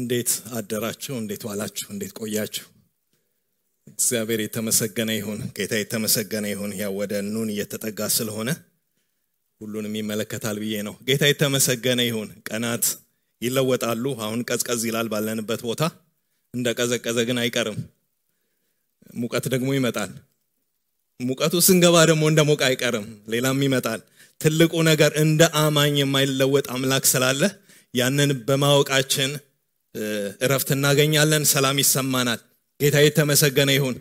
እንዴት አደራችሁ እንዴት ዋላችሁ እንዴት ቆያችሁ እግዚአብሔር የተመሰገነ ይሁን ጌታ የተመሰገነ ይሁን ያ ወደ ኑን እየተጠጋ ስለሆነ ሁሉንም ይመለከታል ብዬ ነው ጌታ የተመሰገነ ይሁን ቀናት ይለወጣሉ አሁን ቀዝቀዝ ይላል ባለንበት ቦታ እንደ ቀዘቀዘ ግን አይቀርም ሙቀት ደግሞ ይመጣል ሙቀቱ ስንገባ ደግሞ እንደ ሞቅ አይቀርም ሌላም ይመጣል ትልቁ ነገር እንደ አማኝ የማይለወጥ አምላክ ስላለ ያንን በማወቃችን እረፍት እናገኛለን ሰላም ይሰማናል ጌታ የተመሰገነ ይሁን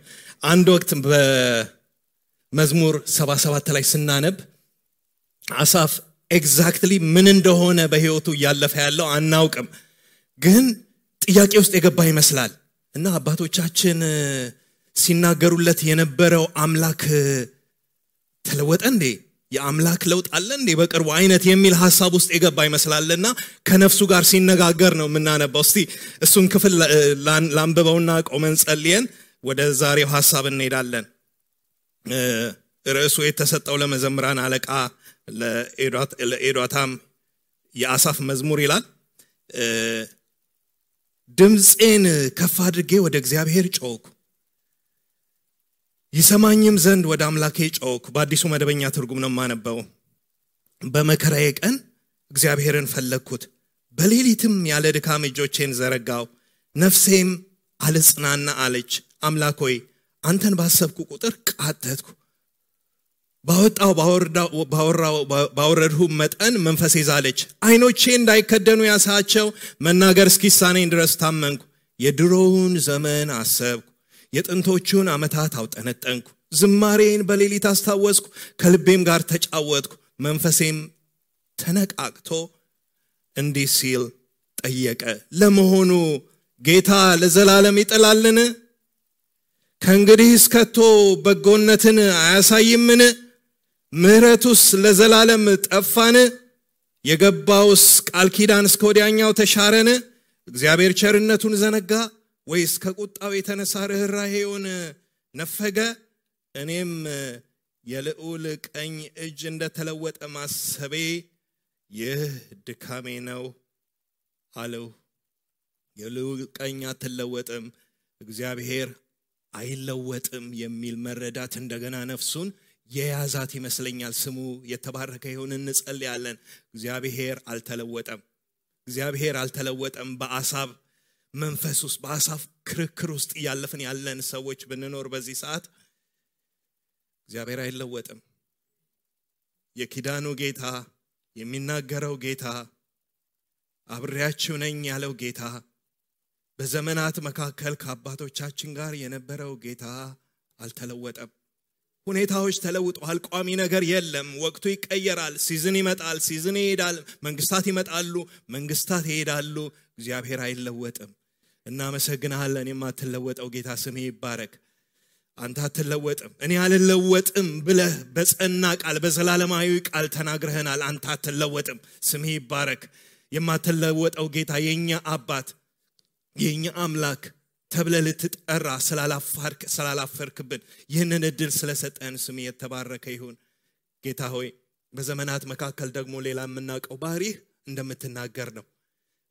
አንድ ወቅት በመዝሙር 77 ላይ ስናነብ አሳፍ ኤግዛክትሊ ምን እንደሆነ በህይወቱ ያለፈ ያለው አናውቅም ግን ጥያቄ ውስጥ የገባ ይመስላል እና አባቶቻችን ሲናገሩለት የነበረው አምላክ ተለወጠ እንዴ የአምላክ ለውጥ አለ እንዴ በቅርቡ አይነት የሚል ሐሳብ ውስጥ የገባ ይመስላልና ከነፍሱ ጋር ሲነጋገር ነው ምናነበው እስቲ እሱን ክፍል ላንብበውና ቆመን ጸልየን ወደ ዛሬው ሐሳብ እንሄዳለን ርዕሱ የተሰጠው ለመዘምራን አለቃ ለኤዶታም የአሳፍ መዝሙር ይላል ድምጼን ከፍ አድርጌ ወደ እግዚአብሔር ጮኽኩ ይሰማኝም ዘንድ ወደ አምላኬ ጮኽኩ በአዲሱ መደበኛ ትርጉም ነው ማነበው በመከራዬ ቀን እግዚአብሔርን ፈለግኩት በሌሊትም ያለ ድካም እጆቼን ዘረጋው ነፍሴም አልጽናና አለች አምላክ ሆይ አንተን ባሰብኩ ቁጥር ቃተትኩ ባወረድሁ መጠን መንፈሴ ዛለች አይኖቼ እንዳይከደኑ ያሳቸው መናገር እስኪሳነኝ ድረስ ታመንኩ የድሮውን ዘመን አሰብኩ የጥንቶቹን አመታት አውጠነጠንኩ ዝማሬን በሌሊት አስታወስኩ ከልቤም ጋር ተጫወትኩ መንፈሴም ተነቃቅቶ እንዲህ ሲል ጠየቀ ለመሆኑ ጌታ ለዘላለም ይጥላልን ከእንግዲህ እስከቶ በጎነትን አያሳይምን ምህረቱስ ለዘላለም ጠፋን የገባውስ ቃል ኪዳን እስከ ወዲያኛው ተሻረን እግዚአብሔር ቸርነቱን ዘነጋ ወይስ ከቁጣው የተነሳ ርህራሄውን ነፈገ እኔም የልዑል ቀኝ እጅ እንደተለወጠ ማሰቤ ይህ ድካሜ ነው አለው የልዑል ቀኝ አትለወጥም እግዚአብሔር አይለወጥም የሚል መረዳት እንደገና ነፍሱን የያዛት ይመስለኛል ስሙ የተባረከ ይሁን እንጸልያለን እግዚአብሔር አልተለወጠም በአሳብ መንፈስ ውስጥ በአሳፍ ክርክር ውስጥ ያለፈን ያለን ሰዎች ብንኖር በዚህ ሰዓት እግዚአብሔር አይለወጥም የኪዳኑ ጌታ የሚናገረው ጌታ አብሬያችሁ ነኝ ያለው ጌታ በዘመናት መካከል ከአባቶቻችን ጋር የነበረው ጌታ አልተለወጠም ሁኔታዎች ተለውጠዋል ቋሚ ነገር የለም ወቅቱ ይቀየራል ሲዝን ይመጣል ሲዝን ይሄዳል መንግስታት ይመጣሉ መንግስታት ይሄዳሉ እግዚአብሔር አይለወጥም እና መሰግናለን የማትለወጠው ጌታ ስም ይባረክ አንተ አትለወጥም እኔ አልለወጥም ብለህ በጸና ቃል በዘላለማዊ ቃል ተናግረህናል አንተ አትለወጥም ስም ይባረክ የማትለወጠው ጌታ የኛ አባት የኛ አምላክ ተብለ ልትጠራ ስላላፈርክብን ይህንን እድል ስለሰጠን ስም የተባረከ ይሁን ጌታ ሆይ በዘመናት መካከል ደግሞ ሌላ የምናውቀው ባህሪህ እንደምትናገር ነው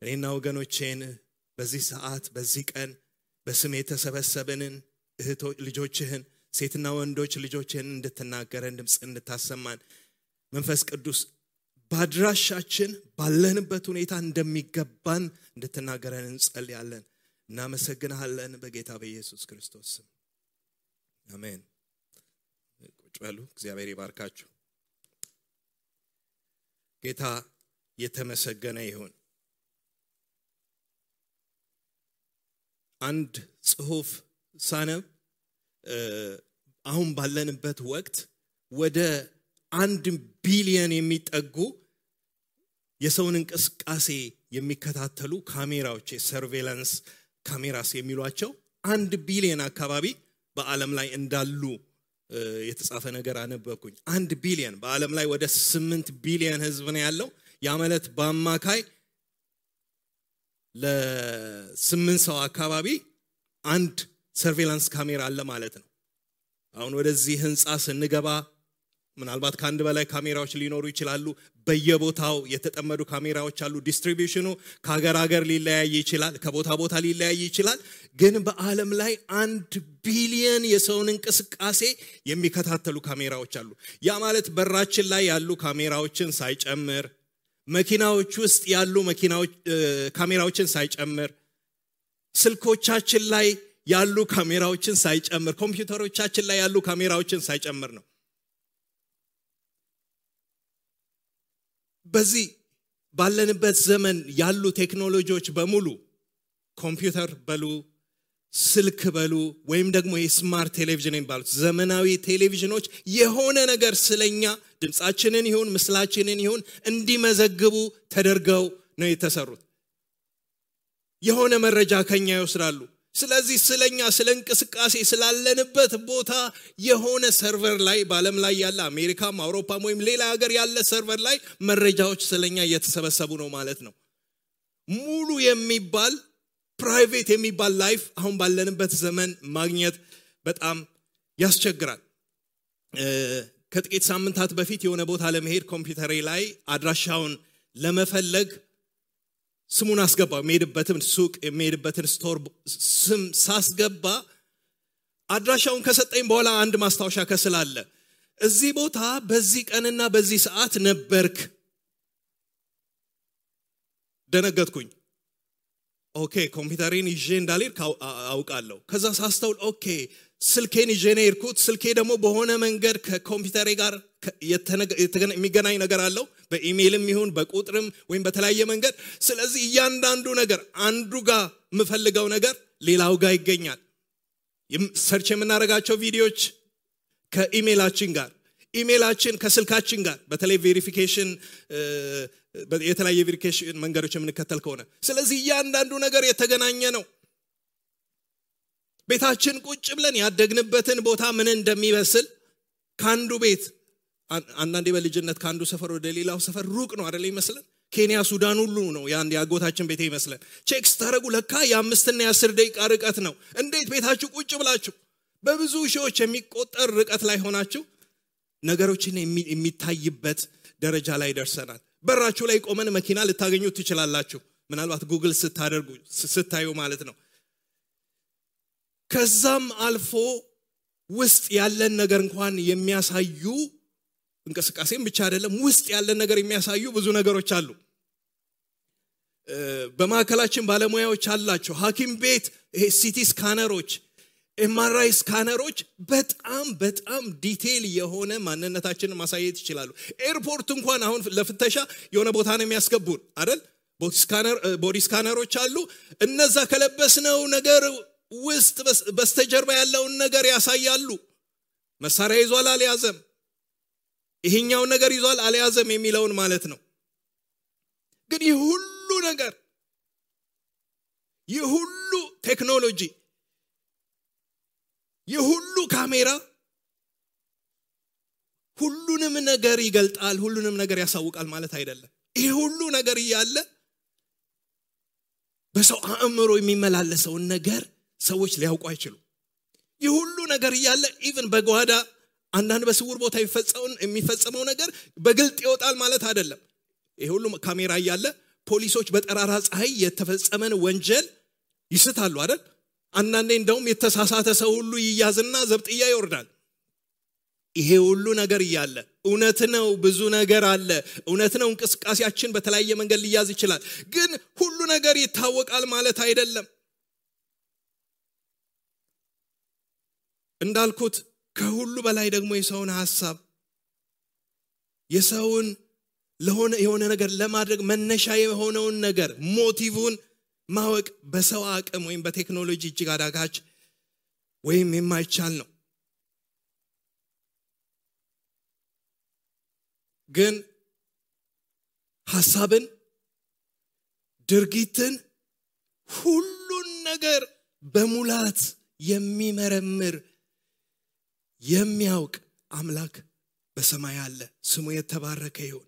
እኔና ወገኖቼን በዚህ ሰዓት በዚህ ቀን በስም የተሰበሰብንን እህቶች ልጆችህን ሴትና ወንዶች ልጆችህን እንድትናገረን ድምጽ እንድታሰማን መንፈስ ቅዱስ ባድራሻችን ባለንበት ሁኔታ እንደሚገባን እንድትናገረን እንጸልያለን እናመሰግናለን በጌታ በኢየሱስ ክርስቶስ ስም አሜን ቁጭ በሉ እግዚአብሔር ይባርካችሁ ጌታ የተመሰገነ ይሁን አንድ ጽሑፍ ሳነብ አሁን ባለንበት ወቅት ወደ 1 ቢሊዮን የሚጠጉ የሰውን እንቅስቃሴ የሚከታተሉ ካሜራዎች ሰርቬላንስ ካሜራስ የሚሏቸው 1 ቢሊዮን አካባቢ በአለም ላይ እንዳሉ የተጻፈ ነገር አነበብኩኝ 1 ቢሊዮን በአለም ላይ ወደ 8 ቢሊዮን ህዝብ ነው ያለው ያ ማለት በአማካይ ለ8 ሰው አካባቢ አንድ ሰርቬላንስ ካሜራ አለ ማለት ነው አሁን ወደዚህ ህንጻ ስንገባ ምናልባት ከአንድ በላይ ካሜራዎች ሊኖሩ ይችላሉ በየቦታው የተጠመዱ ካሜራዎች አሉ ዲስትሪቢዩሽኑ ከሀገር ሀገር ሊለያይ ይችላል ከቦታ ቦታ ሊለያይ ይችላል ግን በአለም ላይ 1 ቢሊዮን የሰውን እንቅስቃሴ የሚከታተሉ ካሜራዎች አሉ ያ ማለት በራችን ላይ ያሉ ካሜራዎችን ሳይጨምር መኪናዎች ውስጥ ያሉ ካሜራዎችን ሳይጨምር ስልኮቻችን ላይ ያሉ ካሜራዎችን ሳይጨምር ኮምፒውተሮቻችን ላይ ያሉ ካሜራዎችን ሳይጨምር ነው በዚህ ባለንበት ዘመን ያሉ ቴክኖሎጂዎች በሙሉ ኮምፒውተር በሉ ስልክ በሉ ወይም ደግሞ የስማርት ቴሌቪዥን የሚባሉት ዘመናዊ ቴሌቪዥኖች የሆነ ነገር ስለኛ ድምጻችንን ይሁን ምስላችንን ይሁን እንዲመዘግቡ ተደርገው ነው የተሰሩት የሆነ መረጃ ከኛ ይወስዳሉ ስለዚህ ስለኛ ስለንቅስቃሴ ስላለንበት ቦታ የሆነ ሰርቨር ላይ በአለም ላይ ያለ አሜሪካም አውሮፓም ወይም ሌላ ሀገር ያለ ሰርቨር ላይ መረጃዎች ስለኛ እየተሰበሰቡ ነው ማለት ነው ሙሉ የሚባል ፕራይቬት የሚባል ላይፍ አሁን ባለንበት ዘመን ማግኘት በጣም ያስቸግራል ከጥቂት ሳምንታት በፊት የሆነ ቦታ ለመሄድ ኮምፒውተሬ ላይ አድራሻውን ለመፈለግ ስሙን አስገባው የሚሄድበትን ሱቅ የሚሄድበትን ስቶር ስም ሳስገባ አድራሻውን ከሰጠኝ በኋላ አንድ ማስታወሻ ከስላለ እዚህ ቦታ በዚህ ቀንና በዚህ ሰዓት ነበርክ ደነገጥኩኝ ኦኬ ኮምፒውተሬን ይዤ እንዳልሄድ አውቃለሁ ከዛ ሳስተውል ኦኬ ስልኬን ይዤ ነው የሄድኩት ስልኬ ደግሞ በሆነ መንገድ ከኮምፒውተሬ ጋር የሚገናኝ ነገር አለው በኢሜይልም ይሁን በቁጥርም ወይም በተለያየ መንገድ ስለዚህ እያንዳንዱ ነገር አንዱ ጋር የምፈልገው ነገር ሌላው ጋር ይገኛል ሰርች የምናደርጋቸው ቪዲዮዎች ከኢሜይላችን ጋር ኢሜይላችን ከስልካችን ጋር በተለይ ቬሪፊኬሽን የተለያየ ቬሪፊኬሽን መንገዶች የምንከተል ከሆነ ስለዚህ እያንዳንዱ ነገር የተገናኘ ነው ቤታችን ቁጭ ብለን ያደግንበትን ቦታ ምን እንደሚመስል ካንዱ ቤት አንዳንዴ በልጅነት ካንዱ ሰፈር ወደ ሌላው ሰፈር ሩቅ ነው አይደል ይመስለን ኬንያ ሱዳን ሁሉ ነው ያን ያጎታችን ቤት ይመስለን ቼክ ስታረጉ ለካ የ5 እና የ10 ደቂቃ ርቀት ነው እንዴት ቤታችሁ ቁጭ ብላችሁ በብዙ ሺዎች የሚቆጠር ርቀት ላይ ሆናችሁ ነገሮችን የሚታይበት ደረጃ ላይ ደርሰናል በራችሁ ላይ ቆመን መኪና ልታገኙ ትችላላችሁ ምናልባት ጉግል ስታዩ ማለት ነው ከዛም አልፎ ውስጥ ያለን ነገር እንኳን የሚያሳዩ እንቅስቃሴም ብቻ አይደለም ውስጥ ያለን ነገር የሚያሳዩ ብዙ ነገሮች አሉ በማከላችን ባለሙያዎች አላቸው ሐኪም ቤት ሲቲ ስካነሮች ኤምአርአይ ስካነሮች በጣም ዲቴል የሆነ ማንነታችንን ማሳየት ይችላሉ ኤርፖርት እንኳን አሁን ለፍተሻ የሆነ ቦታ ነው የሚያስገቡን አይደል ቦዲ ስካነሮች አሉ እነዛ ከለበስነው ነገር ውስጥ በስተጀርባ ያለውን ነገር ያሳያሉ መሳሪያ ይዟል አልያዘም ይሄኛው ነገር ይዟል አልያዘም የሚለውን ማለት ነው ግን ይሁሉ ነገር ይሁሉ ቴክኖሎጂ ይሁሉ ካሜራ ሁሉንም ነገር ይገልጣል ሁሉንም ነገር ያሳውቃል ማለት አይደለም ይሄ ሁሉ ነገር ያለ በሰው አእምሮ የሚመላለሰው ነገር ሰዎች ሊያውቁ አይችሉ ይሁሉ ነገር ያለ ኢቭን በጓዳ አንዳንድ በስውር ቦታ የሚፈጸመው ነገር በግልጥ ይወጣል ማለት አይደለም ይሄ ሁሉ ካሜራ ያለ ፖሊሶች በጠራራ ፀሐይ የተፈጸመን ወንጀል ይስታሉ አይደል አንዳንዴ እንደውም የተሳሳተ ሰው ሁሉ ይያዝና ዘብጥያ ይወርዳል ይሄ ሁሉ ነገር ያለ እውነት ነው ብዙ ነገር አለ እውነት ነው እንቅስቃሴያችን በተለያየ መንገድ ሊያዝ ይችላል ግን ሁሉ ነገር ይታወቃል ማለት አይደለም እንዳልኩት ከሁሉ በላይ ደግሞ የሰውን ሐሳብ የሰውን የሆነ ነገር ለማድረግ መነሻ የሆነውን ነገር ሞቲቭን ማወቅ በሰው አቅም ወይም በቴክኖሎጂ እጅግ አዳጋች ወይም የማይቻል ነው ግን ሐሳብን ድርጊትን ሁሉን ነገር በሙላት የሚመረምር የሚያውቅ አምላክ በሰማይ አለ ስሙ የተባረከ ይሁን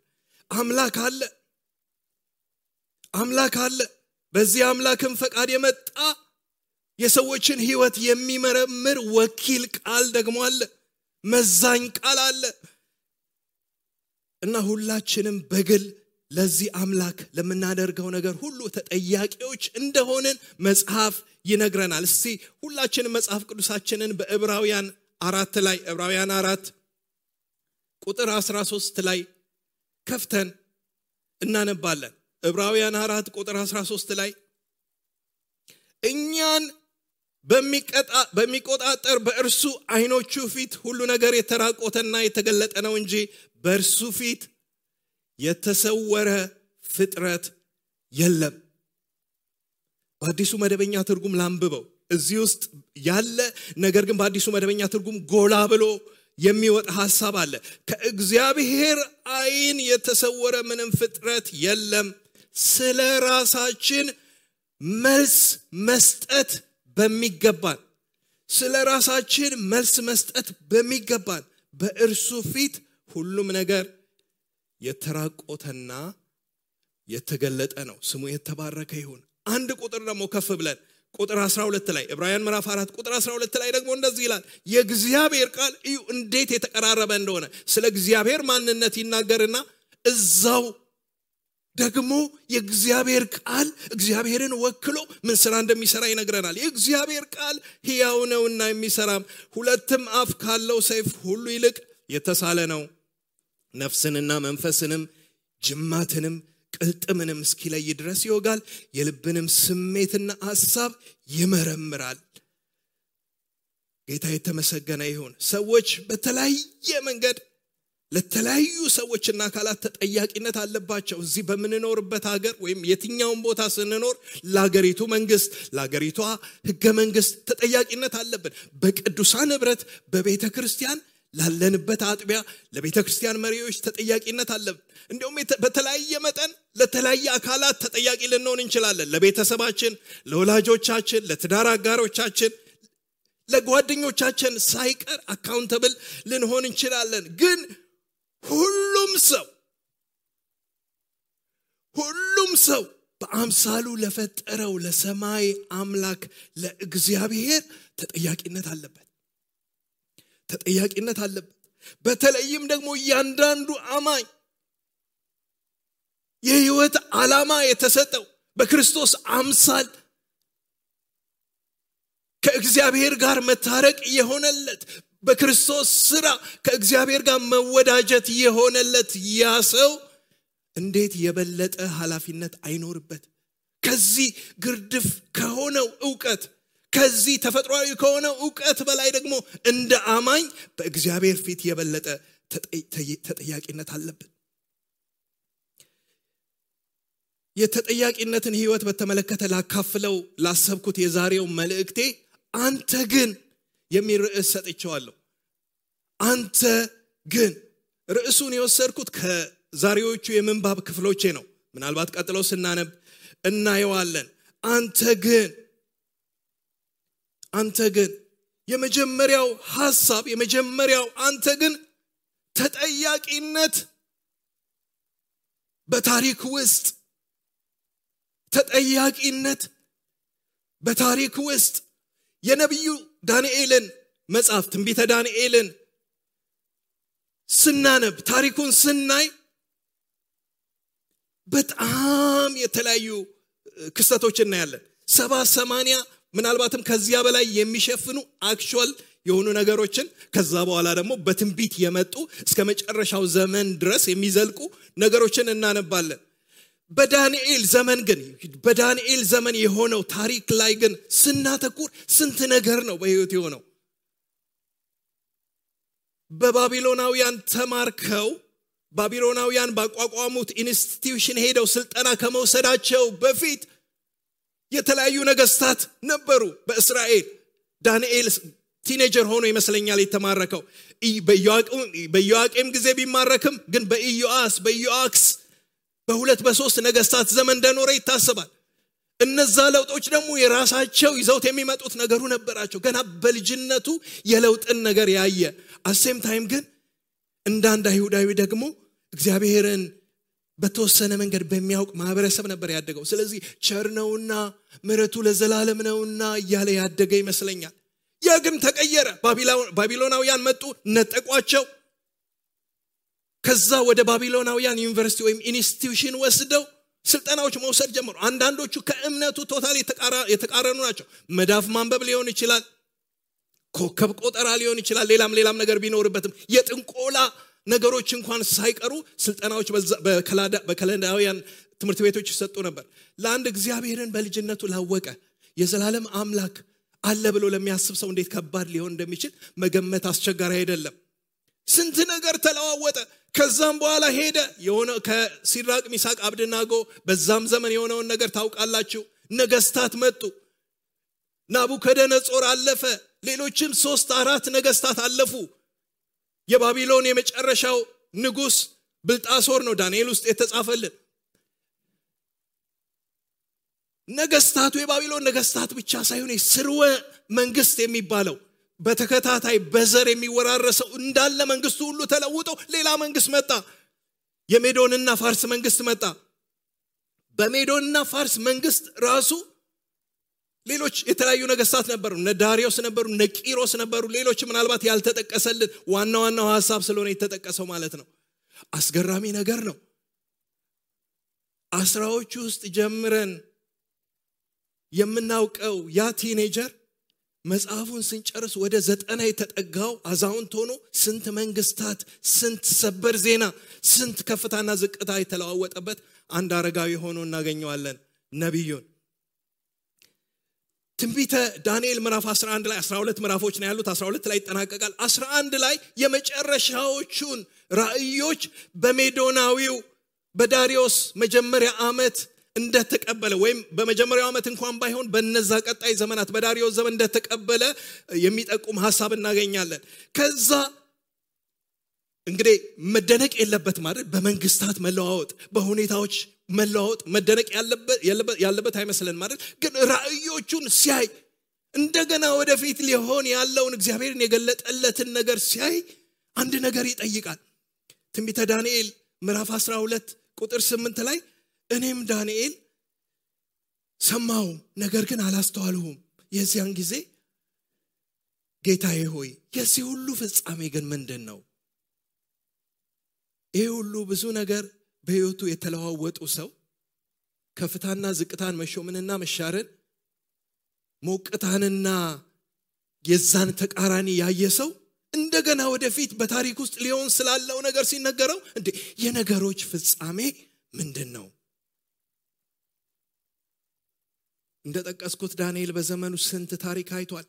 አምላክ አለ በዚህ አምላክም ፈቃድ የመጣ የሰዎችን ህይወት የሚመረምር ወኪል ቃል ደግሞ አለ መዛኝ ቃል አለ እና ሁላችንም በግል ለዚህ አምላክ ለምናደርገው ነገር ሁሉ ተጠያቂዎች እንደሆንን መጽሐፍ ይነግረናል። እስቲ ሁላችንም መጽሐፍ ቅዱሳችንን በዕብራውያን 4 ላይ ዕብራውያን 4 ቁጥር 13 ላይ ከፍተን እናነባለን። ዕብራውያን 4 ቁጥር 13 ላይ እኛን በሚቆጣጠር በእርሱ አይኖቹ ፊት ሁሉ ነገር የተራቆተና የተገለጠ ነው እንጂ በእርሱ ፊት የተሰወረ ፍጥረት የለም። በአዲሱ መደበኛ ትርጉም ላንብበው። እዚህ ውስጥ ያለ ነገር ግን በአዲሱ መደበኛ ትርጉም ጎላ ብሎ የሚወጣ ሐሳብ አለ። ከእግዚአብሔር አይን የተሰወረ ምንም ፍጥረት የለም። ስለ ራሳችን መልስ መስጠት በሚገባን በእርሱ ፊት ሁሉም ነገር የተራቆተና የተገለጠ ነው። ስሙ የተባረከ ይሁን። አንድ ቁጥር ደግሞ ከፍ ብለን ቁጥር 12 ላይ ዕብራውያን ምዕራፍ 4 ቁጥር 12 ላይ ደግሞ እንደዚህ ይላል። የእግዚአብሔር ቃል እዩ እንዴት የተቀራረበ እንደሆነ ስለ እግዚአብሔር ማንነት ይናገርና እዛው ደግሞ የእግዚአብሔር ቃል እግዚአብሔርን ወክሎ ምን ስራ እንደሚሰራ ይነግረናል። የእግዚአብሔር ቃል ሕያው ነውና የሚሰራም ሁለትም አፍ ካለው ሰይፍ ሁሉ ይልቅ የተሳለ ነው፣ ነፍስንና መንፈስንም ጅማትንም ቅልጥምንም እስኪለይ ድረስ ይወጋል፣ የልብንም ስሜትና ሐሳብ ይመረምራል። ጌታ የተመሰገነ ይሁን። ሰዎች በተለያየ መንገድ ለተለያዩ ሰዎችና አካላት ተጠያቂነት አለባቸው። እዚህ በምንኖርበት ሀገር ወይም የትኛውን ቦታ ስንኖር ለሀገሪቱ መንግስት፣ ለሀገሪቷ ህገ መንግስት ተጠያቂነት አለብን። በቅዱሳን ህብረት በቤተ ክርስቲያን ላለንበት አጥቢያ ለቤተ ክርስቲያን መሪዎች ተጠያቂነት አለብን። እንዲሁም በተለያየ መጠን ለተለያየ አካላት ተጠያቂ ልንሆን እንችላለን። ለቤተሰባችን፣ ለወላጆቻችን፣ ለትዳር አጋሮቻችን፣ ለጓደኞቻችን ሳይቀር አካውንተብል ልንሆን እንችላለን። ግን ሁሉም ሰው በአምሳሉ ለፈጠረው ለሰማይ አምላክ ለእግዚአብሔር ተጠያቂነት አለበት። በተለይም ደግሞ እያንዳንዱ አማኝ የህይወት ዓላማ የተሰጠው በክርስቶስ አምሳል ከእግዚአብሔር ጋር መታረቅ የሆነለት በክርስቶስ ሥራ ከእግዚአብሔር ጋር መወዳጀት የሆነለት ያ ሰው እንዴት የበለጠ ኃላፊነት አይኖርበት? ከዚህ ግርድፍ ከሆነው ዕውቀት ከዚህ ተፈጥሯዊ ከሆነው ዕውቀት በላይ ደግሞ እንደ አማኝ በእግዚአብሔር ፊት የበለጠ ተጠያቂነት አለብን። የተጠያቂነትን ህይወት በተመለከተ ላካፍለው ላሰብኩት የዛሬው መልእክቴ አንተ ግን የሚል ርዕስ ሰጥቼዋለሁ። አንተ ግን ርዕሱን የወሰድኩት ከዛሬዎቹ የምንባብ ክፍሎቼ ነው። ምናልባት ቀጥሎ ስናነብ እናየዋለን። አንተ ግን የመጀመሪያው ሐሳብ አንተ ግን ተጠያቂነት በታሪክ ውስጥ የነቢዩ ዳንኤልን መጽሐፍ ትንቢተ ዳንኤልን ስናነብ ታሪኩን ስናይ በጣም የተለያዩ ክስተቶች እናያለን። 70-80 ምናልባትም ከዚያ በላይ የሚሸፍኑ አክቹዋል የሆኑ ነገሮችን ከዛ በኋላ ደግሞ በትንቢት የመጡ እስከ መጨረሻው ዘመን ድረስ የሚዘልቁ ነገሮችን እናነባለን። በዳንኤል ዘመን የሆነው ታሪክ ላይ ግን ስናተኩር ስንት ነገር ነው በህይወት የሆነው። በባቢሎናውያን ተማርከው ባቢሎናውያን ባቋቋሙት ኢንስቲትዩሽን ሄደው ስልጠና ከመውሰዳቸው በፊት የተለያዩ ነገስታት ነበሩ በእስራኤል። ዳንኤል ቲኔጀር ሆኖ ይመስለኛል የተማረከው። በኢዮአቄም ጊዜ ቢማረክም ግን በኢዮአክስ በ2-3 ነገስታት ዘመን እንደኖረ ይታሰባል። እነዛ ለውጦች ደግሞ የራሳቸው ይዘውት የሚመጡት ነገሩ ነበራቸው። ገና በልጅነቱ የለውጥን ነገር ያየ አሴም ታይም ግን እንዳንድ አይሁዳዊ ደግሞ እግዚአብሔርን በተወሰነ መንገድ በሚያውቅ ማህበረሰብ ነበር ያደገው። ስለዚህ ቸር ነውና ምሕረቱ ለዘላለም ነውና እያለ ያደገ ይመስለኛል። ያ ግን ተቀየረ። ባቢሎናውያን መጡ፣ ነጠቋቸው። ከዛ ወደ ባቢሎናውያን ዩኒቨርሲቲ ወይም ኢንስቲትዩሽን ወስደው ስልጠናዎች መውሰድ ጀመሩ። አንዳንዶቹ ከእምነቱ ቶታሊ የተቃረኑ ናቸው። መዳፍ ማንበብ ሊሆን ይችላል፣ ኮከብ ቆጠራ ሊሆን ይችላል፣ ሌላም ነገር ቢኖርበትም የጥንቆላ ነገሮች እንኳን ሳይቀሩ ስልጠናዎች በከለዳውያን ትምህርት ቤቶች ይሰጡ ነበር። ለአንድ እግዚአብሔርን በልጅነቱ ላወቀ የዘላለም አምላክ አለ ብሎ ለሚያስብ ሰው እንዴት ከባድ ሊሆን እንደሚችል መገመት አስቸጋሪ አይደለም። ስንት ነገር ተለዋወጠ። ከዛም በኋላ ሄደ የሆነ ከሲድራቅ ሚሳቅ አብደናጎ በዛም ዘመን የሆነውን ነገር ታውቃላችሁ። ነገስታት መጡ። ናቡከደነጾር አለፈ። ሌሎችም 3-4 ነገስታት አለፉ። የባቢሎን የመጨረሻው ንጉስ ብልጣሶር ነው ዳንኤል ውስጥ የተጻፈልን። ነገስታቱ የባቢሎን ነገስታት ብቻ ሳይሆን ስርወ መንግስት የሚባለው በተከታታይ በዘር የሚወራረሰው እንዳለ መንግስቱ ሁሉ ተለውጦ ሌላ መንግስት መጣ። የሜዶንና ፋርስ መንግስት መጣ። በሜዶንና ፋርስ መንግስት ራሱ ሌሎች የተለያዩ ነገስታት ነበሩ። እነ ዳሪዮስ ነበሩ፣ እነ ቂሮስ ነበሩ። ሌሎች ምናልባት ያልተጠቀሰልን ዋናው ሐሳብ ስለሆነ የተጠቀሰው ማለት ነው። አስገራሚ ነገር ነው። አስራዎቹ ውስጥ ጀምረን የምናውቀው ያ ቲኔጀር መጽሐፉን ስንጨርስ ወደ 90 የተጠጋው አዛውንት ሆኖ ስንት መንግስታት፣ ስንት ሰበር ዜና፣ ስንት ከፍታና ዝቅታ የተለዋወጠበት አንድ አረጋዊ ሆኖ እናገኘዋለን ነብዩን። ትንቢተ ዳንኤል ምዕራፍ 11 ላይ 12 ምዕራፎች ነው ያሉት። 12 ላይ ይጠናቀቃል። 11 ላይ የመጨረሻዎቹን ራእዮች በሜዶናዊው በዳሪዮስ መጀመሪያ ዓመት እንደተቀበለ ወይም በመጀመሪያው ዓመት እንኳን ባይሆን በነዛ ቀጣይ ዘመናት በዳሪዮስ ዘመን እንደተቀበለ የሚጠቁም ሐሳብ እናገኛለን። ከዛ እንግዲህ መደነቅ የለበት ማለት በመንግስታት መለዋወጥ፣ በሁኔታዎች መለዋወጥ መደነቅ ያለበት አይመስለን ማለት ግን ራእዮቹን ሲያይ እንደገና ወደፊት ሊሆን ያለውን እግዚአብሔርን የገለጠለትን ነገር ሲያይ አንድ ነገር ይጠይቃል። ትንቢተ ዳንኤል ምዕራፍ 12 ቁጥር 8 ላይ እኔም ዳንኤል ሰማሁ፣ ነገር ግን አላስተዋልሁም። የዚያን ጊዜ ጌታዬ ሆይ የዚህ ሁሉ ፍጻሜ ግን ምንድነው? ይሄ ሁሉ ብዙ ነገር በህይወቱ የተለዋወጡ ሰው ከፍታና ዝቅታን፣ መሾምንና መሻርን፣ ሞቅታንና የዛን ተቃራኒ ያየ ሰው እንደገና ወደፊት በታሪክ ውስጥ ሊሆን ስላለው ነገር ሲነገረው እንዴ የነገሮች ፍጻሜ ምንድነው? እንደጠቀስኩት ዳንኤል በዘመኑ ስንት ታሪክ አይቷል።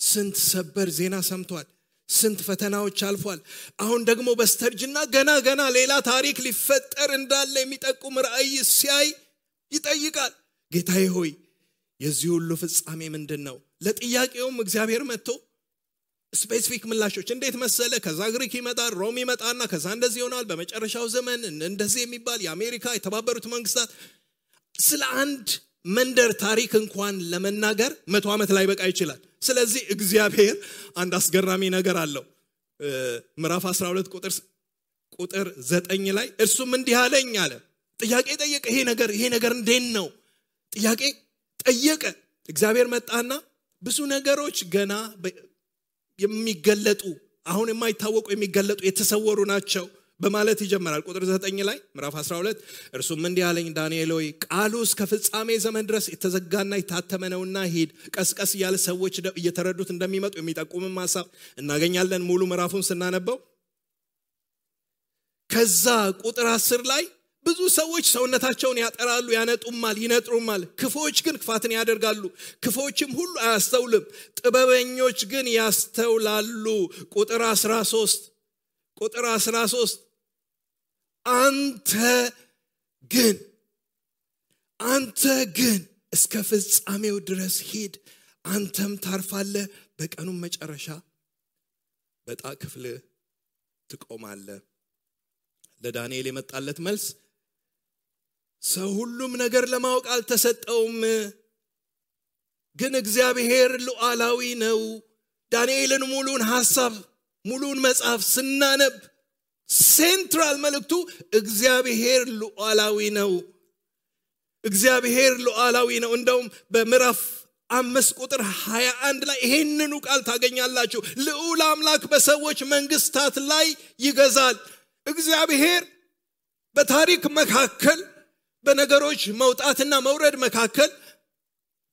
ስንት ሰበር ዜና ሰምቷል። ስንት ፈተናዎች አልፏል። አሁን ደግሞ በስተርጅና ገና ሌላ ታሪክ ሊፈጠር እንዳለ የሚጠቁም ራእይ ሲያይ ይጠይቃል። ጌታዬ ሆይ የዚህ ሁሉ ፍጻሜ ምንድነው? ለጥያቄውም እግዚአብሔር መጥቶ ስፔሲፊክ ምላሾች እንዴት መሰለ? ከዛ ግሪክ ይመጣል፣ ሮም ይመጣና ከዛ እንደዚህ ይሆናል፣ በመጨረሻው ዘመን እንደዚህ የሚባል የአሜሪካ የተባበሩት መንግስታት ስለ አንድ መንደር ታሪክ እንኳን ለመናገር 100 ዓመት ላይ በቃ ይችላል። ስለዚህ እግዚአብሔር አንድ አስገራሚ ነገር አለው። ምዕራፍ 12 ቁጥር 9 ላይ እርሱም እንዲህ አለኝ አለ። ጥያቄ ጠየቀ። ይሄ ነገር እንዴት ነው? ጥያቄ ጠየቀ። እግዚአብሔር መጣና ብዙ ነገሮች ገና የሚገለጡ አሁን የማይታወቁ የሚገለጡ የተሰወሩ ናቸው በማለት ይጀምራል። ቁጥር 9 ላይ ምዕራፍ 12 እርሱም እንዲህ አለኝ ዳንኤል ሆይ ቃሉ እስከ ፍጻሜ ዘመን ድረስ የተዘጋና የታተመ ነውና ሂድ። ቀስቀስ እያለ ሰዎች እየተረዱት እንደሚመጡ የሚጠቁምም ሐሳብ እናገኛለን ሙሉ ምዕራፉን ስናነበው። ከዛ ቁጥር 10 ላይ ብዙ ሰዎች ሰውነታቸውን ያጠራሉ፣ ያነጡማል፣ ይነጥሩማል። ክፎች ግን ክፋትን ያደርጋሉ። ክፎችም ሁሉ አያስተውልም፣ ጥበበኞች ግን ያስተውላሉ። ቁጥር 13 አንተ ግን እስከ ፍጻሜው ድረስ ሂድ፣ አንተም ታርፋለህ፣ በቀኑም መጨረሻ በዕጣ ክፍል ትቆማለህ። ለዳንኤል የመጣለት መልስ ሰው ሁሉም ነገር ለማወቅ አልተሰጠውም፣ ግን እግዚአብሔር ሉዓላዊ ነው። ዳንኤልን ሙሉን ሐሳብ ሙሉን መጽሐፍ ስናነብ ሴንትራል መልእክቱ እግዚአብሔር ሉዓላዊ ነው። እግዚአብሔር ሉዓላዊ ነው። እንደውም በምዕራፍ 5 ቁጥር 21 ላይ ይሄንኑ ቃል ታገኛላችሁ። ልዑል አምላክ በሰዎች መንግስታት ላይ ይገዛል። እግዚአብሔር በታሪክ መካከል በነገሮች መውጣትና መውረድ መካከል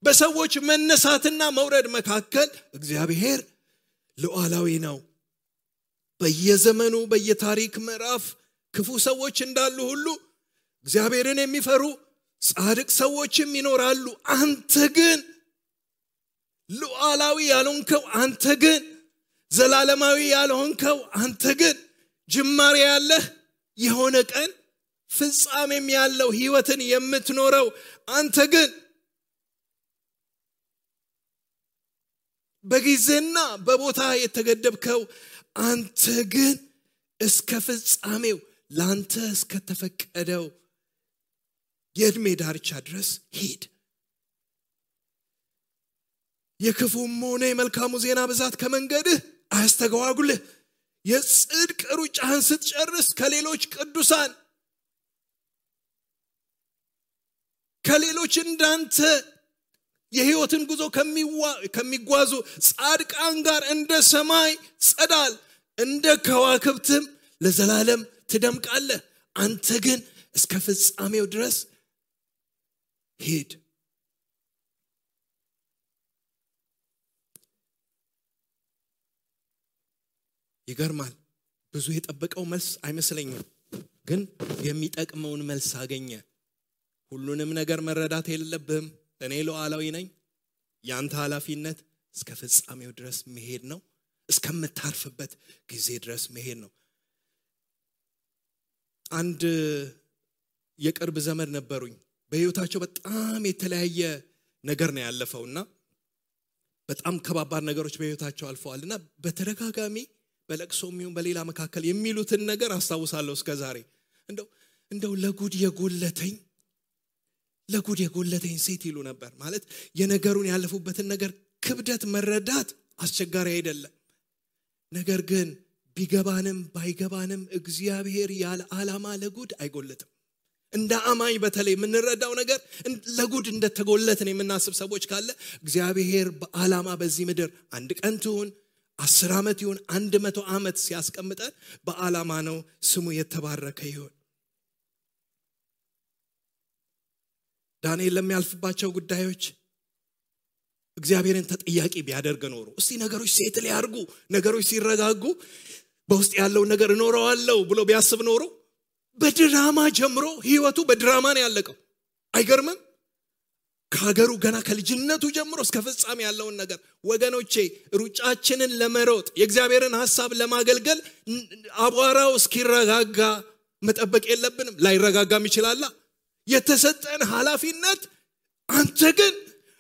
በሰዎች መነሳትና መውረድ መካከል እግዚአብሔር ሉዓላዊ ነው። በየዘመኑ በየታሪክ ምዕራፍ ክፉ ሰዎች እንዳሉ ሁሉ እግዚአብሔርን የሚፈሩ ጻድቅ ሰዎችም ይኖራሉ። አንተ ግን ሉዓላዊ ያልሆንከው፣ አንተ ግን ዘላለማዊ ያልሆንከው፣ አንተ ግን ጅማሬ ያለህ የሆነ ቀን ፍጻሜም ያለው ህይወትን የምትኖረው አንተ ግን በጊዜና በቦታ የተገደብከው አንተ ግን እስከ ፍጻሜው ላንተ እስከ ተፈቀደው የዕድሜ ዳርቻ ድረስ ሂድ። የክፉም ሆነ የመልካሙ ዜና ብዛት ከመንገድህ አያስተጓጉልህ። የጽድቅ ሩጫህን ስትጨርስ ከሌሎች ቅዱሳን ከሌሎች እንዳንተ የህይወትን ጉዞ ከሚጓዙ ጻድቃን ጋር እንደ ሰማይ ጸዳል እንደ ከዋክብትም ለዘላለም ትደምቃለህ። አንተ ግን እስከ ፍጻሜው ድረስ ሂድ። ይገርማል። ብዙ የጠበቀው መልስ አይመስለኝም፣ ግን የሚጠቅመውን መልስ አገኘ። ሁሉንም ነገር መረዳት የለብህም። እኔ ሉዓላዊ ነኝ። ያንተ ኃላፊነት እስከ ፍጻሜው ድረስ መሄድ ነው። እስከምታርፍበት ጊዜ ድረስ መሄድ ነው። አንድ የቅርብ ዘመድ ነበሩኝ። በህይወታቸው በጣም የተለያየ ነገር ነው ያለፈውና በጣም ከባባድ ነገሮች በህይወታቸው አልፈዋልና በተደጋጋሚ በለቅሶም ይሁን በሌላ መካከል የሚሉትን ነገር አስታውሳለሁ እስከዛሬ። እንደው ለጉድ የጎለተኝ ሴት ይሉ ነበር። ማለት የነገሩን ያለፉበትን ነገር ክብደት መረዳት አስቸጋሪ አይደለም። ነገር ግን ቢገባንም ባይገባንም እግዚአብሔር ያለ ዓላማ ለጉድ አይጎለትም። እንደ አማኝ በተለይ የምንረዳው ነገር ለጉድ እንደተጎለትን የምናስብ ሰዎች ካለ እግዚአብሔር በዓላማ በዚህ ምድር አንድ ቀን ትሁን 10 ዓመት ይሁን 100 ዓመት ሲያስቀምጠን በዓላማ ነው። ስሙ የተባረከ ይሁን። ዳንኤል ለሚያልፍባቸው ጉዳዮች እግዚአብሔርን ተጠያቂ ቢያደርግ ኖሮ እስቲ ነገሮች ሴትል ያርጉ፣ ነገሮች ሲረጋጉ በውስጥ ያለው ነገር እኖረዋለሁ ብሎ ቢያስብ ኖሮ በድራማ ጀምሮ ህይወቱ በድራማ ነው ያለቀው። አይገርምም? ከሀገሩ ገና ከልጅነቱ ጀምሮ እስከ ፍጻሜ ያለውን ነገር ወገኖቼ ሩጫችንን ለመሮጥ የእግዚአብሔርን ሐሳብ ለማገልገል አቧራው እስኪረጋጋ መጠበቅ የለብንም። ላይረጋጋም ይችላል። የተሰጠን ኃላፊነት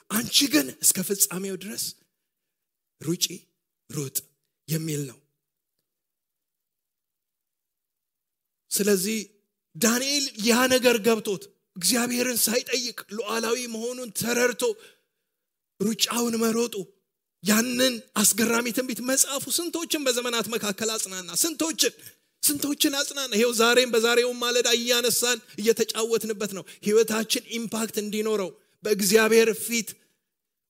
አንቺ ግን እስከ ፍጻሜው ድረስ ሩጥ የሚል ነው። ስለዚህ ዳንኤል ያ ነገር ገብቶት እግዚአብሔርን ሳይጠይቅ ሉዓላዊ መሆኑን ተረድቶ ሩጫውን መሮጡ ያንን አስገራሚ ትንቢት መጽሐፉ ስንቶችን በዘመናት መካከል አጽናና፣ ስንቶችን አጽናና። ይሄው ዛሬም በዛሬው ማለዳ እያነሳን እየተጫወትንበት ነው። ህይወታችን ኢምፓክት እንዲኖረው በእግዚአብሔር ፊት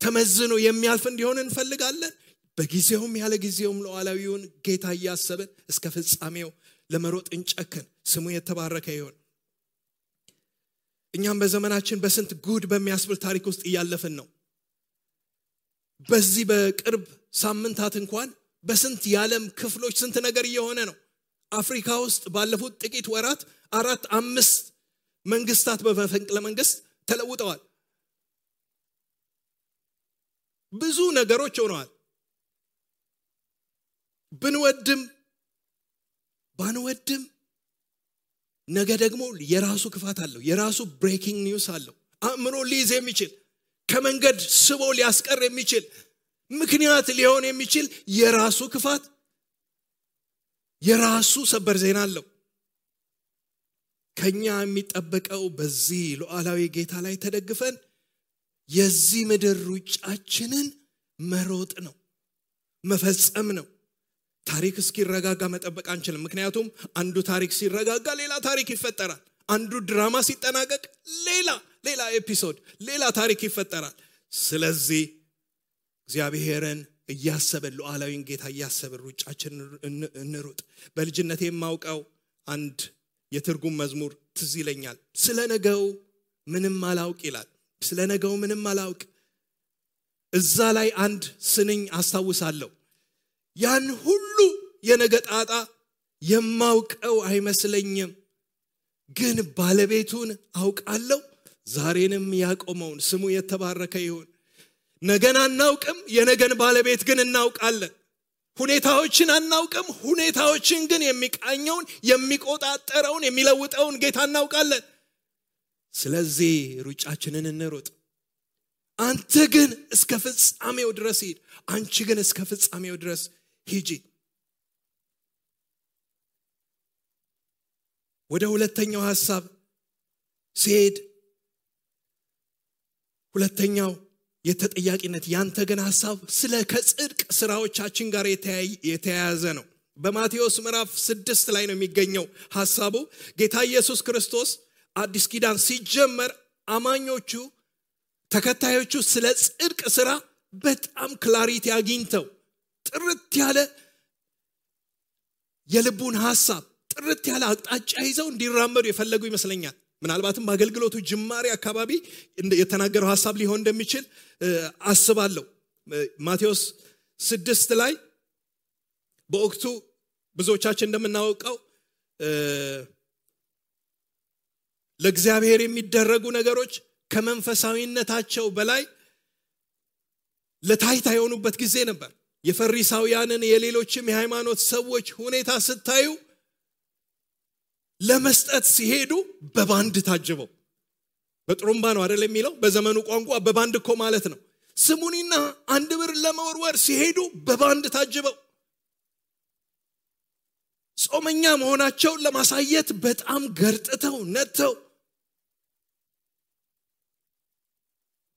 ተመዝኖ የሚያልፍ እንዲሆን እንፈልጋለን። በጊዜውም ያለ ጊዜውም ሉዓላዊውን ጌታ እያሰብን እስከ ፍጻሜው ለመሮጥ እንጨክን። ስሙ የተባረከ ይሁን። እኛም በዘመናችን በስንት ጉድ በሚያስብል ታሪክ ውስጥ እያለፍን ነው። በዚህ በቅርብ ሳምንታት እንኳን በስንት የዓለም ክፍሎች ስንት ነገር እየሆነ ነው። አፍሪካ ውስጥ ባለፉት ጥቂት ወራት 4-5 መንግስታት በመፈንቅለ መንግስት ተለውጠዋል። ብዙ ነገሮች ሆነዋል። ብንወድም ባንወድም ነገ ደግሞ የራሱ ክፋት አለው። የራሱ ብሬኪንግ ኒውስ አለው። አእምሮ ሊይዝ የሚችል ከመንገድ ስቦ ሊያስቀር የሚችል ምክንያት ሊሆን የሚችል የራሱ ክፋት የራሱ ሰበር ዜና አለው። ከኛ የሚጠበቀው በዚህ ሉዓላዊ ጌታ ላይ ተደግፈን የዚህ ምድር ሩጫችንን መሮጥ ነው፣ መፈጸም ነው። ታሪክ እስኪረጋጋ መጠበቅ አንችልም። ምክንያቱም አንዱ ታሪክ ሲረጋጋ ሌላ ታሪክ ይፈጠራል። አንዱ ድራማ ሲጠናቀቅ ሌላ ኤፒሶድ ሌላ ታሪክ ይፈጠራል። ስለዚህ እግዚአብሔርን እያሰብን ሉዓላዊን ጌታ እያሰብን ሩጫችንን እንሩጥ። በልጅነቴ የማውቀው አንድ የትርጉም መዝሙር ትዝ ይለኛል። ስለነገው ምንም አላውቅ ይላል። ስለነገው ምንም አላውቅ። እዛ ላይ አንድ ስንኝ አስታውሳለሁ። ያን ሁሉ የነገ ጣጣ የማውቀው አይመስለኝም፣ ግን ባለቤቱን አውቃለሁ፣ ዛሬንም ያቆመውን። ስሙ የተባረከ ይሁን። ነገን አናውቅም፣ የነገን ባለቤት ግን እናውቃለን። ሁኔታዎችን አናውቅም፣ ሁኔታዎችን ግን የሚቃኘውን፣ የሚቆጣጠረውን፣ የሚለውጠውን ጌታ እናውቃለን። ስለዚህ ሩጫችንን እንሩጥ። አንተ ግን እስከ ፍጻሜው ድረስ ሂድ፣ አንቺ ግን እስከ ፍጻሜው ድረስ ሂጂ። ወደ ሁለተኛው ሐሳብ ሲሄድ ሁለተኛው የተጠያቂነት ያንተ ግን ሐሳብ ስለ ከጽድቅ ስራዎቻችን ጋር የተያያዘ ነው። በማቴዎስ ምዕራፍ 6 ላይ ነው የሚገኘው ሐሳቡ። ጌታ ኢየሱስ ክርስቶስ አዲስ ኪዳን ሲጀመር አማኞቹ ተከታዮቹ ስለ ጽድቅ ስራ በጣም ክላሪቲ አግኝተው ጥርት ያለ የልቡን ሐሳብ ጥርት ያለ አቅጣጫ ይዘው እንዲራመዱ የፈለጉ ይመስለኛል። ምናልባትም በአገልግሎቱ ጅማሬ አካባቢ የተናገረው ሐሳብ ሊሆን እንደሚችል አስባለሁ። ማቴዎስ 6 ላይ በወቅቱ ብዙዎቻችን እንደምናውቀው ለእግዚአብሔር የሚደረጉ ነገሮች ከመንፈሳዊነታቸው በላይ ለታይታ የሆኑበት ጊዜ ነበር። የፈሪሳውያንን የሌሎችም የሃይማኖት ሰዎች ሁኔታ ስታዩ ለመስጠት ሲሄዱ በባንድ ታጅበው፣ በጥሩምባ ነው አይደል የሚለው በዘመኑ ቋንቋ፣ በባንድ እኮ ማለት ነው። ስሙኒና አንድ ብር ለመወርወር ሲሄዱ በባንድ ታጅበው ጾመኛ መሆናቸውን ለማሳየት በጣም ገርጥተው ነተው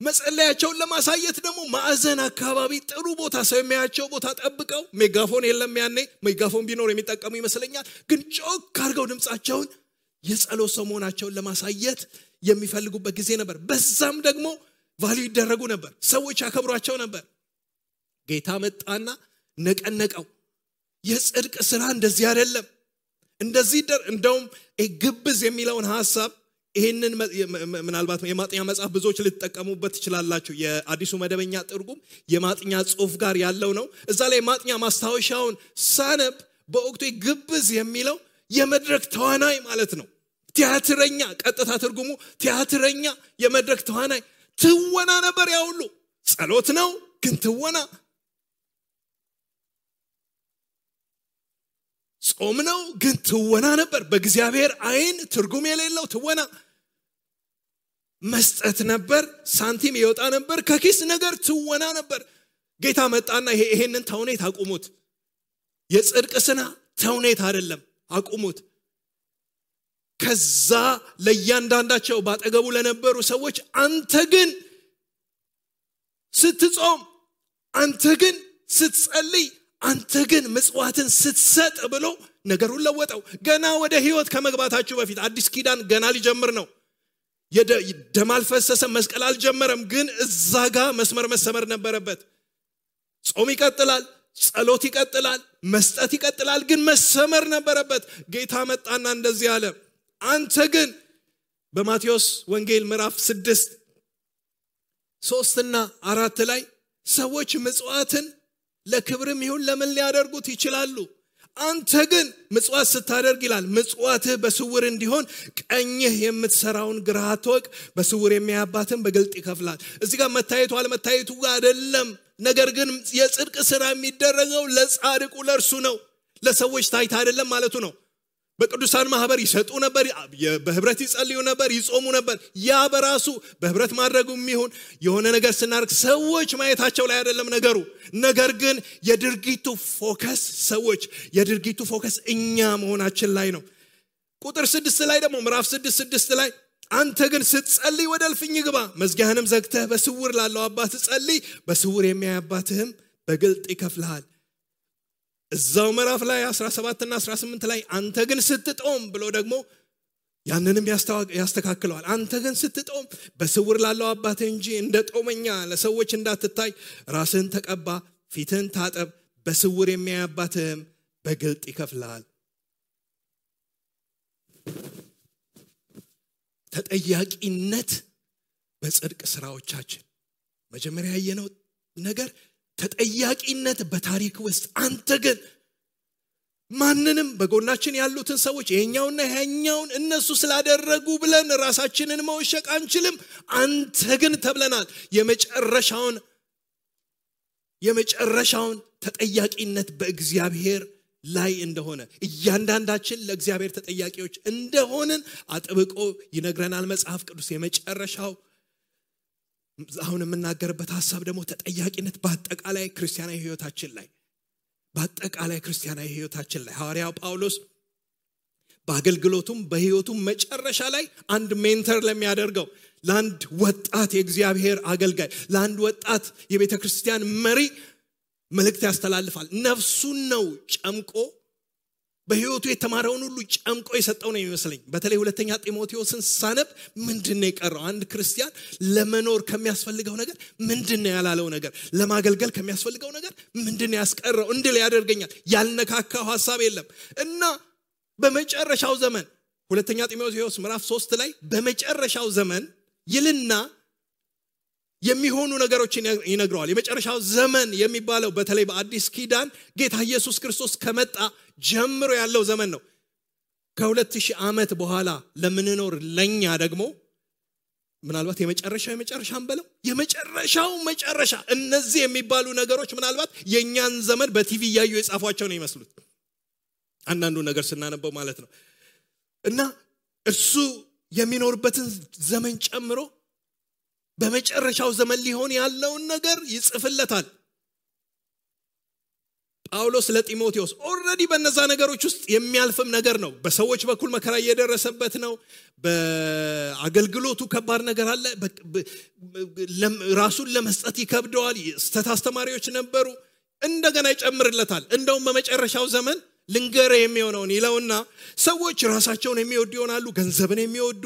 መጸለያቸውን ለማሳየት ደግሞ ማዕዘን አካባቢ ጥሩ ቦታ ሰው የሚያያቸው ቦታ ጠብቀው፣ ሜጋፎን የለም ያኔ፣ ሜጋፎን ቢኖር የሚጠቀሙ ይመስለኛል፣ ግን ጮክ አድርገው ድምጻቸውን የጸሎት ሰው መሆናቸውን ለማሳየት የሚፈልጉበት ጊዜ ነበር። በዛም ደግሞ ቫልዩ ይደረጉ ነበር፣ ሰዎች ያከብሯቸው ነበር። ጌታ መጣና ነቀነቀው። የጽድቅ ስራ እንደዚህ አይደለም፣ እንደዚህ እንደውም ግብዝ የሚለውን ሐሳብ ይሄንን ምናልባት የማጥኛ መጽሐፍ ብዙዎች ልትጠቀሙበት ትችላላችሁ። የአዲሱ መደበኛ ትርጉም የማጥኛ ጽሑፍ ጋር ያለው ነው። እዛ ላይ ማጥኛ ማስታወሻውን ሳነብ በወቅቱ ግብዝ የሚለው የመድረክ ተዋናይ ማለት ነው። ቲያትረኛ፣ ቀጥታ ትርጉሙ ቲያትረኛ፣ የመድረክ ተዋናይ። ትወና ነበር ያ ሁሉ። ጸሎት ነው ግን ትወና፣ ጾም ነው ግን ትወና ነበር። በእግዚአብሔር አይን ትርጉም የሌለው ትወና። መስጠት ነበር፣ ሳንቲም ይወጣ ነበር ከኪስ ነገር፣ ትወና ነበር። ጌታ መጣና ይሄንን ተውኔት አቁሙት፣ የጽድቅ ስራ ተውኔት አይደለም፣ አቁሙት። ከዛ ለእያንዳንዳቸው ባጠገቡ ለነበሩ ሰዎች አንተ ግን ስትጾም፣ አንተ ግን ስትጸልይ፣ አንተ ግን ምጽዋትን ስትሰጥ ብሎ ነገሩን ለወጠው። ገና ወደ ህይወት ከመግባታችሁ በፊት አዲስ ኪዳን ገና ሊጀምር ነው። ደም አልፈሰሰም፣ መስቀል አልጀመረም፣ ግን እዛ ጋር መስመር መሰመር ነበረበት። ጾም ይቀጥላል፣ ጸሎት ይቀጥላል፣ መስጠት ይቀጥላል፣ ግን መሰመር ነበረበት። ጌታ መጣና እንደዚህ አለ፣ አንተ ግን በማቴዎስ ወንጌል ምዕራፍ 6 3 እና 4 ላይ ሰዎች ምጽዋትን ለክብርም ይሁን ለምን ሊያደርጉት ይችላሉ፣ አንተ ግን ምጽዋት ስታደርግ ይላል ምጽዋትህ በስውር እንዲሆን ቀኝህ የምትሰራውን ግራህ አትወቅ፣ በስውር የሚያባትን በግልጥ ይከፍላል። እዚህ ጋር መታየቱ አለመታየቱ ጋር አይደለም፣ ነገር ግን የጽድቅ ስራ የሚደረገው ለጻድቁ ለእርሱ ነው፣ ለሰዎች ታይታ አይደለም ማለቱ ነው። በቅዱሳን ማህበር ይሰጡ ነበር፣ በህብረት ይጸልዩ ነበር፣ ይጾሙ ነበር። ያ በራሱ በህብረት ማድረጉም ይሁን የሆነ ነገር ስናርግ ሰዎች ማየታቸው ላይ አይደለም ነገሩ። ነገር ግን የድርጊቱ ፎከስ ሰዎች፣ የድርጊቱ ፎከስ እኛ መሆናችን ላይ ነው። ቁጥር 6 ላይ ደግሞ ምዕራፍ 6 ላይ አንተ ግን ስትጸልይ ወደ እልፍኝ ግባ፣ መዝጊያህንም ዘግተህ በስውር ላለው አባት ጸልይ፣ በስውር የሚያይ አባትህም በግልጥ ይከፍልሃል። እዛው ምዕራፍ ላይ 17 እና 18 ላይ አንተ ግን ስትጦም ብሎ ደግሞ ያንንም ያስተካክለዋል። አንተ ግን ስትጦም በስውር ላለው አባትህ እንጂ እንደ ጦመኛ ለሰዎች እንዳትታይ ራስህን ተቀባ፣ ፊትህን ታጠብ፣ በስውር የሚያይ አባትህም በግልጥ ይከፍልሃል። ተጠያቂነት በጽድቅ ስራዎቻችን መጀመሪያ ያየነው ነገር ተጠያቂነት በታሪክ ውስጥ አንተ ግን ማንንም በጎናችን ያሉትን ሰዎች የኛውና ያኛውን እነሱ ስላደረጉ ብለን ራሳችንን መወሸቅ አንችልም አንተ ግን ተብለናል የመጨረሻውን ተጠያቂነት በእግዚአብሔር ላይ እንደሆነ እያንዳንዳችን ለእግዚአብሔር ተጠያቂዎች እንደሆነን አጥብቆ ይነግረናል መጽሐፍ ቅዱስ የመጨረሻው አሁን የምናገርበት ሐሳብ ደግሞ ተጠያቂነት በአጠቃላይ ክርስቲያናዊ ህይወታችን ላይ ሐዋርያው ጳውሎስ በአገልግሎቱም በህይወቱም መጨረሻ ላይ አንድ ሜንተር ለሚያደርገው ለአንድ ወጣት የእግዚአብሔር አገልጋይ ለአንድ ወጣት የቤተክርስቲያን መሪ መልእክት ያስተላልፋል ነፍሱን ነው ጨምቆ በህይወቱ የተማረውን ሁሉ ጨምቆ የሰጠው ነው የሚመስለኝ በተለይ ሁለተኛ ጢሞቴዎስን ሳነብ ምንድነው የቀረው አንድ ክርስቲያን ለመኖር ከሚያስፈልገው ነገር ምንድነው ያላለው ነገር ለማገልገል ከሚያስፈልገው ነገር ምንድነው ያስቀረው እንድል ያደርገኛል ያልነካካው ሐሳብ የለም እና በመጨረሻው ዘመን ሁለተኛ ጢሞቴዎስ ምዕራፍ 3 ላይ በመጨረሻው ዘመን ይልና የሚሆኑ ነገሮችን ይነግረዋል የመጨረሻው ዘመን የሚባለው በተለይ በአዲስ ኪዳን ጌታ ኢየሱስ ክርስቶስ ከመጣ ጀምሮ ያለው ዘመን ነው ከ2000 ዓመት በኋላ ለምንኖር ለኛ ደግሞ ምናልባት የመጨረሻም በለው የመጨረሻው መጨረሻ እነዚህ የሚባሉ ነገሮች ምናልባት የኛን ዘመን በቲቪ ያዩ የጻፏቸው ነው ይመስሉት አንዳንዱ ነገር ስናነበው ማለት ነው እና እሱ የሚኖርበትን ዘመን ጨምሮ በመጨረሻው ዘመን ሊሆን ያለውን ነገር ይጽፍለታል ጳውሎስ ለጢሞቴዎስ ኦሬዲ በእነዛ ነገሮች ውስጥ የሚያልፍም ነገር ነው በሰዎች በኩል መከራ እየደረሰበት ነው በአገልግሎቱ ከባድ ነገር አለ ራሱን ለመስጠት ይከብደዋል አስተማሪዎች ነበሩ እንደገና ይጨምርለታል እንደውም በመጨረሻው ዘመን ልንገር የሚሆነውን ይለውና ሰዎች ራሳቸውን የሚወዱ ይሆናሉ ገንዘብን የሚወዱ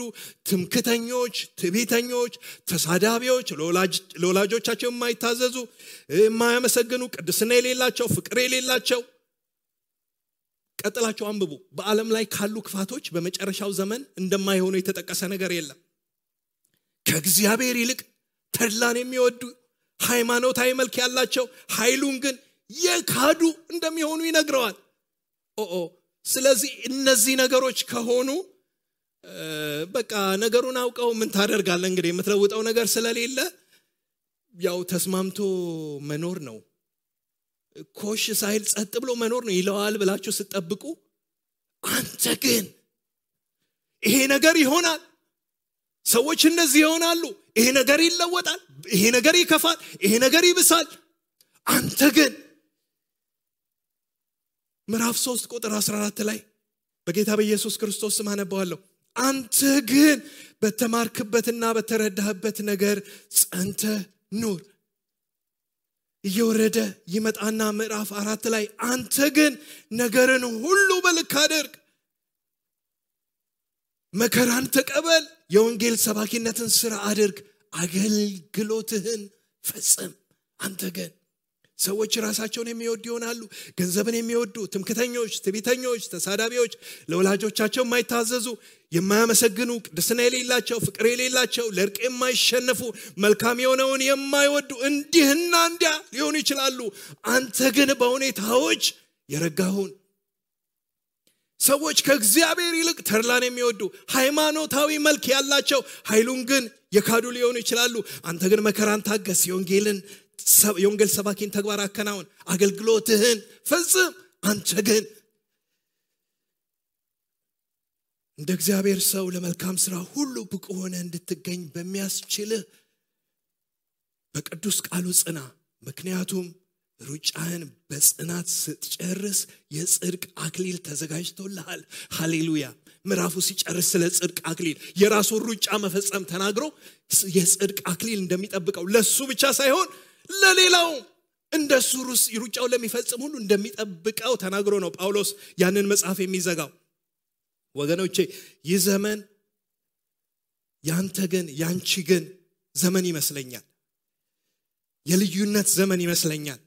ትምክተኞች ትዕቢተኞች ተሳዳቢዎች ለወላጆቻቸው የማይታዘዙ የማያመሰግኑ ቅድስና የሌላቸው ፍቅር የሌላቸው ቀጥላቸው አንብቡ በዓለም ላይ ካሉ ክፋቶች በመጨረሻው ዘመን እንደማይሆኑ የተጠቀሰ ነገር የለም ከእግዚአብሔር ይልቅ ተድላን የሚወዱ ሃይማኖታዊ መልክ ያላቸው ኃይሉን ግን የካዱ እንደሚሆኑ ይነግረዋል ስለዚህ እነዚህ ነገሮች ከሆኑ በቃ ነገሩን አውቀው ምን ታደርጋለህ እንግዲህ የምትለውጠው ነገር ስለሌለ ያው ተስማምቶ መኖር ነው ኮሽ ሳይል ጸጥ ብሎ መኖር ነው ይለዋል ብላችሁ ስትጠብቁ አንተ ግን ይሄ ነገር ይሆናል ሰዎች እንደዚህ ይሆናሉ ይሄ ነገር ይለወጣል ይሄ ነገር ይከፋል ይሄ ነገር ይብሳል አንተ ግን ምዕራፍ 3 ቁጥር 14 ላይ በጌታ በኢየሱስ ክርስቶስ ስም አነባዋለሁ አንተ ግን በተማርክበትና በተረዳህበት ነገር ጸንተ ኑር እየወረደ ይመጣና ምዕራፍ 4 ላይ አንተ ግን ነገርን ሁሉ በልክ አድርግ መከራን ተቀበል የወንጌል ሰባኪነትን ሥራ አድርግ አገልግሎትህን ፈጽም አንተ ግን ሰዎች ራሳቸውን የሚወዱ ይሆናሉ ገንዘብን የሚወዱ ትምክተኞች ትዕቢተኞች ተሳዳቢዎች ለወላጆቻቸው የማይታዘዙ የማያመሰግኑ ቅድስና የሌላቸው ፍቅር የሌላቸው ለእርቅ የማይሸነፉ መልካም የሆነውን የማይወዱ እንዲህና እንዲያ ሊሆኑ ይችላሉ አንተ ግን በሁኔታዎች የረጋሁን ሰዎች ከእግዚአብሔር ይልቅ ተድላን የሚወዱ ሃይማኖታዊ መልክ ያላቸው ኃይሉን ግን የካዱ ሊሆኑ ይችላሉ አንተ ግን መከራን ታገስ የወንጌል ሰባኪን ተግባር አከናውን አገልግሎትህን ፈጽም አንተ ግን እንደ እግዚአብሔር ሰው ለመልካም ሥራ ሁሉ ብቁ ሆነ እንድትገኝ በሚያስችልህ በቅዱስ ቃሉ ጽና ምክንያቱም ሩጫህን በጽናት ስትጨርስ የጽድቅ አክሊል ተዘጋጅቶልሃል ሃሌሉያ ምዕራፉ ሲጨርስ ስለ ጽድቅ አክሊል የራሱን ሩጫ መፈጸም ተናግሮ የጽድቅ አክሊል እንደሚጠብቀው ለሱ ብቻ ሳይሆን ለሌላው እንደሱ ሩጫው ለሚፈጽም ሁሉ እንደሚጠብቀው ተናግሮ ነው ጳውሎስ ያንን መጽሐፍ የሚዘጋው ወገኖቼ ይህ ዘመን ያንተ ግን ያንቺ ግን ዘመን ይመስለኛል የልዩነት ዘመን ይመስለኛል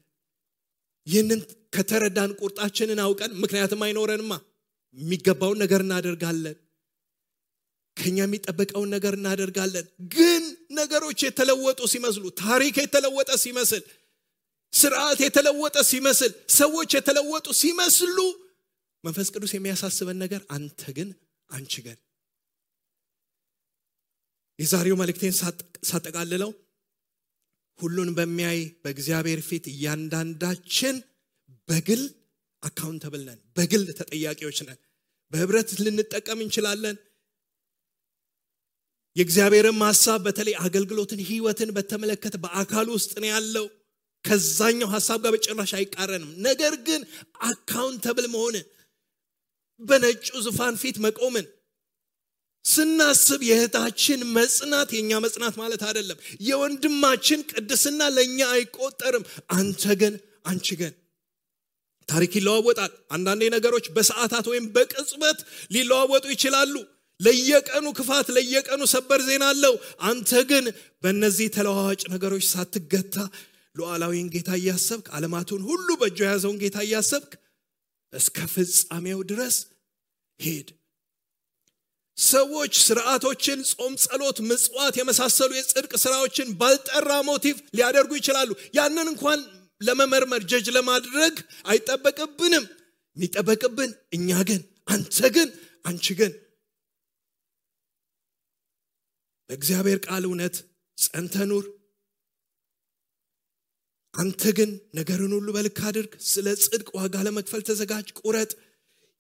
ይህንን ከተረዳን ቁርጣችንን አውቀን ምክንያቱም አይኖረንማ የሚገባውን ነገር እናደርጋለን ከኛ የሚጠበቀውን ነገር እናደርጋለን። ግን ነገሮች የተለወጡ ሲመስሉ፣ ታሪክ የተለወጠ ሲመስል፣ ስርዓት የተለወጠ ሲመስል፣ ሰዎች የተለወጡ ሲመስሉ መንፈስ ቅዱስ የሚያሳስበን ነገር አንተ ግን አንቺ ግን። የዛሬው መልእክቴን ሳጠቃልለው ሁሉን በሚያይ በእግዚአብሔር ፊት እያንዳንዳችን በግል አካውንተብል ነን፣ በግል ተጠያቂዎች ነን። በህብረት ልንጠቀም እንችላለን። የእግዚአብሔርን ሐሳብ በተለይ አገልግሎትን ህይወትን በተመለከተ በአካል ውስጥ ነው ያለው። ከዛኛው ሐሳብ ጋር በጭራሽ አይቃረንም። ነገር ግን አካውንተብል መሆንን በነጩ ዙፋን ፊት መቆምን ስናስብ የእህታችን መጽናት የኛ መጽናት ማለት አይደለም። የወንድማችን ቅድስና ለኛ አይቆጠርም። አንተ ግን አንቺ ግን። ታሪክ ይለዋወጣል። አንዳንዴ ነገሮች በሰዓታት ወይም በቅጽበት ሊለዋወጡ ይችላሉ። ለየቀኑ ክፋት፣ ለየቀኑ ሰበር ዜና አለው። አንተ ግን በእነዚህ ተለዋዋጭ ነገሮች ሳትገታ ሉዓላዊን ጌታ እያሰብክ፣ ዓለማቱን ሁሉ በእጁ የያዘውን ጌታ እያሰብክ እስከ ፍጻሜው ድረስ ሄድ። ሰዎች ስርዓቶችን፣ ጾም፣ ጸሎት፣ ምጽዋት የመሳሰሉ የጽድቅ ስራዎችን ባልጠራ ሞቲቭ ሊያደርጉ ይችላሉ። ያንን እንኳን ለመመርመር ጀጅ ለማድረግ አይጠበቅብንም። የሚጠበቅብን እኛ ግን አንተ ግን አንቺ ግን በእግዚአብሔር ቃል እውነት ጸንተህ ኑር። አንተ ግን ነገርን ሁሉ በልክ አድርግ። ስለ ጽድቅ ዋጋ ለመክፈል ተዘጋጅ፣ ቁረጥ።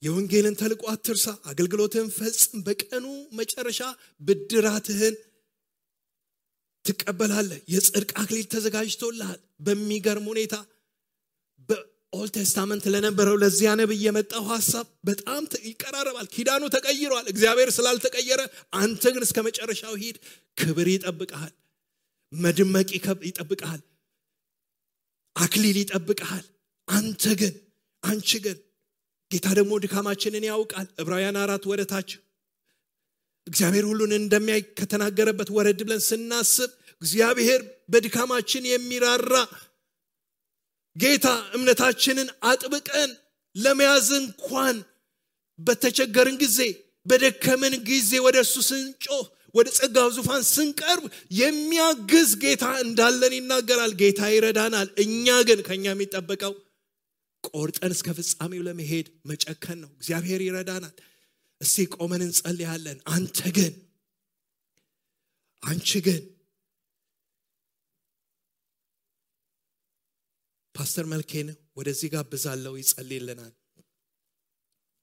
የወንጌልን ተልእኮ አትርሳ። አገልግሎትህን ፈጽም። በቀኑ መጨረሻ ብድራትህን ትቀበላለህ። የጽድቅ አክሊል ተዘጋጅቶልሃል። በሚገርም ሁኔታ በኦልድ ቴስታመንት ለነበረው ለዚያ ነብይ የመጣው ሐሳብ በጣም ይቀራረባል። ኪዳኑ ተቀይሯል። እግዚአብሔር ስላልተቀየረ አንተ ግን እስከ መጨረሻው ሂድ። ክብር ይጠብቅሃል። መድመቅ ይጠብቅሃል። አክሊል ይጠብቅሃል። አንተ ግን አንቺ ግን። ጌታ ደግሞ ድካማችንን ያውቃል። ዕብራውያን 4 ወደታች እግዚአብሔር ሁሉን እንደሚያይ ከተናገረበት ወረድ ብለን ስናስብ እግዚአብሔር በድካማችን የሚራራ ጌታ፣ እምነታችንን አጥብቀን ለመያዝ እንኳን በተቸገርን ጊዜ፣ በደከመን ጊዜ ወደሱ ስንጮህ፣ ወደ ጸጋው ዙፋን ስንቀርብ የሚያግዝ ጌታ እንዳለን ይናገራል። ጌታ ይረዳናል። እኛ ግን ከኛ የሚጠበቀው ቆርጠን እስከ ፍጻሜው ለመሄድ መጨከን ነው። እግዚአብሔር ይረዳናል። እስቲ ቆመን እንጸልያለን። አንተ ግን አንቺ ግን። ፓስተር መልኬን ወደዚህ ጋብዛለሁ፣ ይጸልይልናል።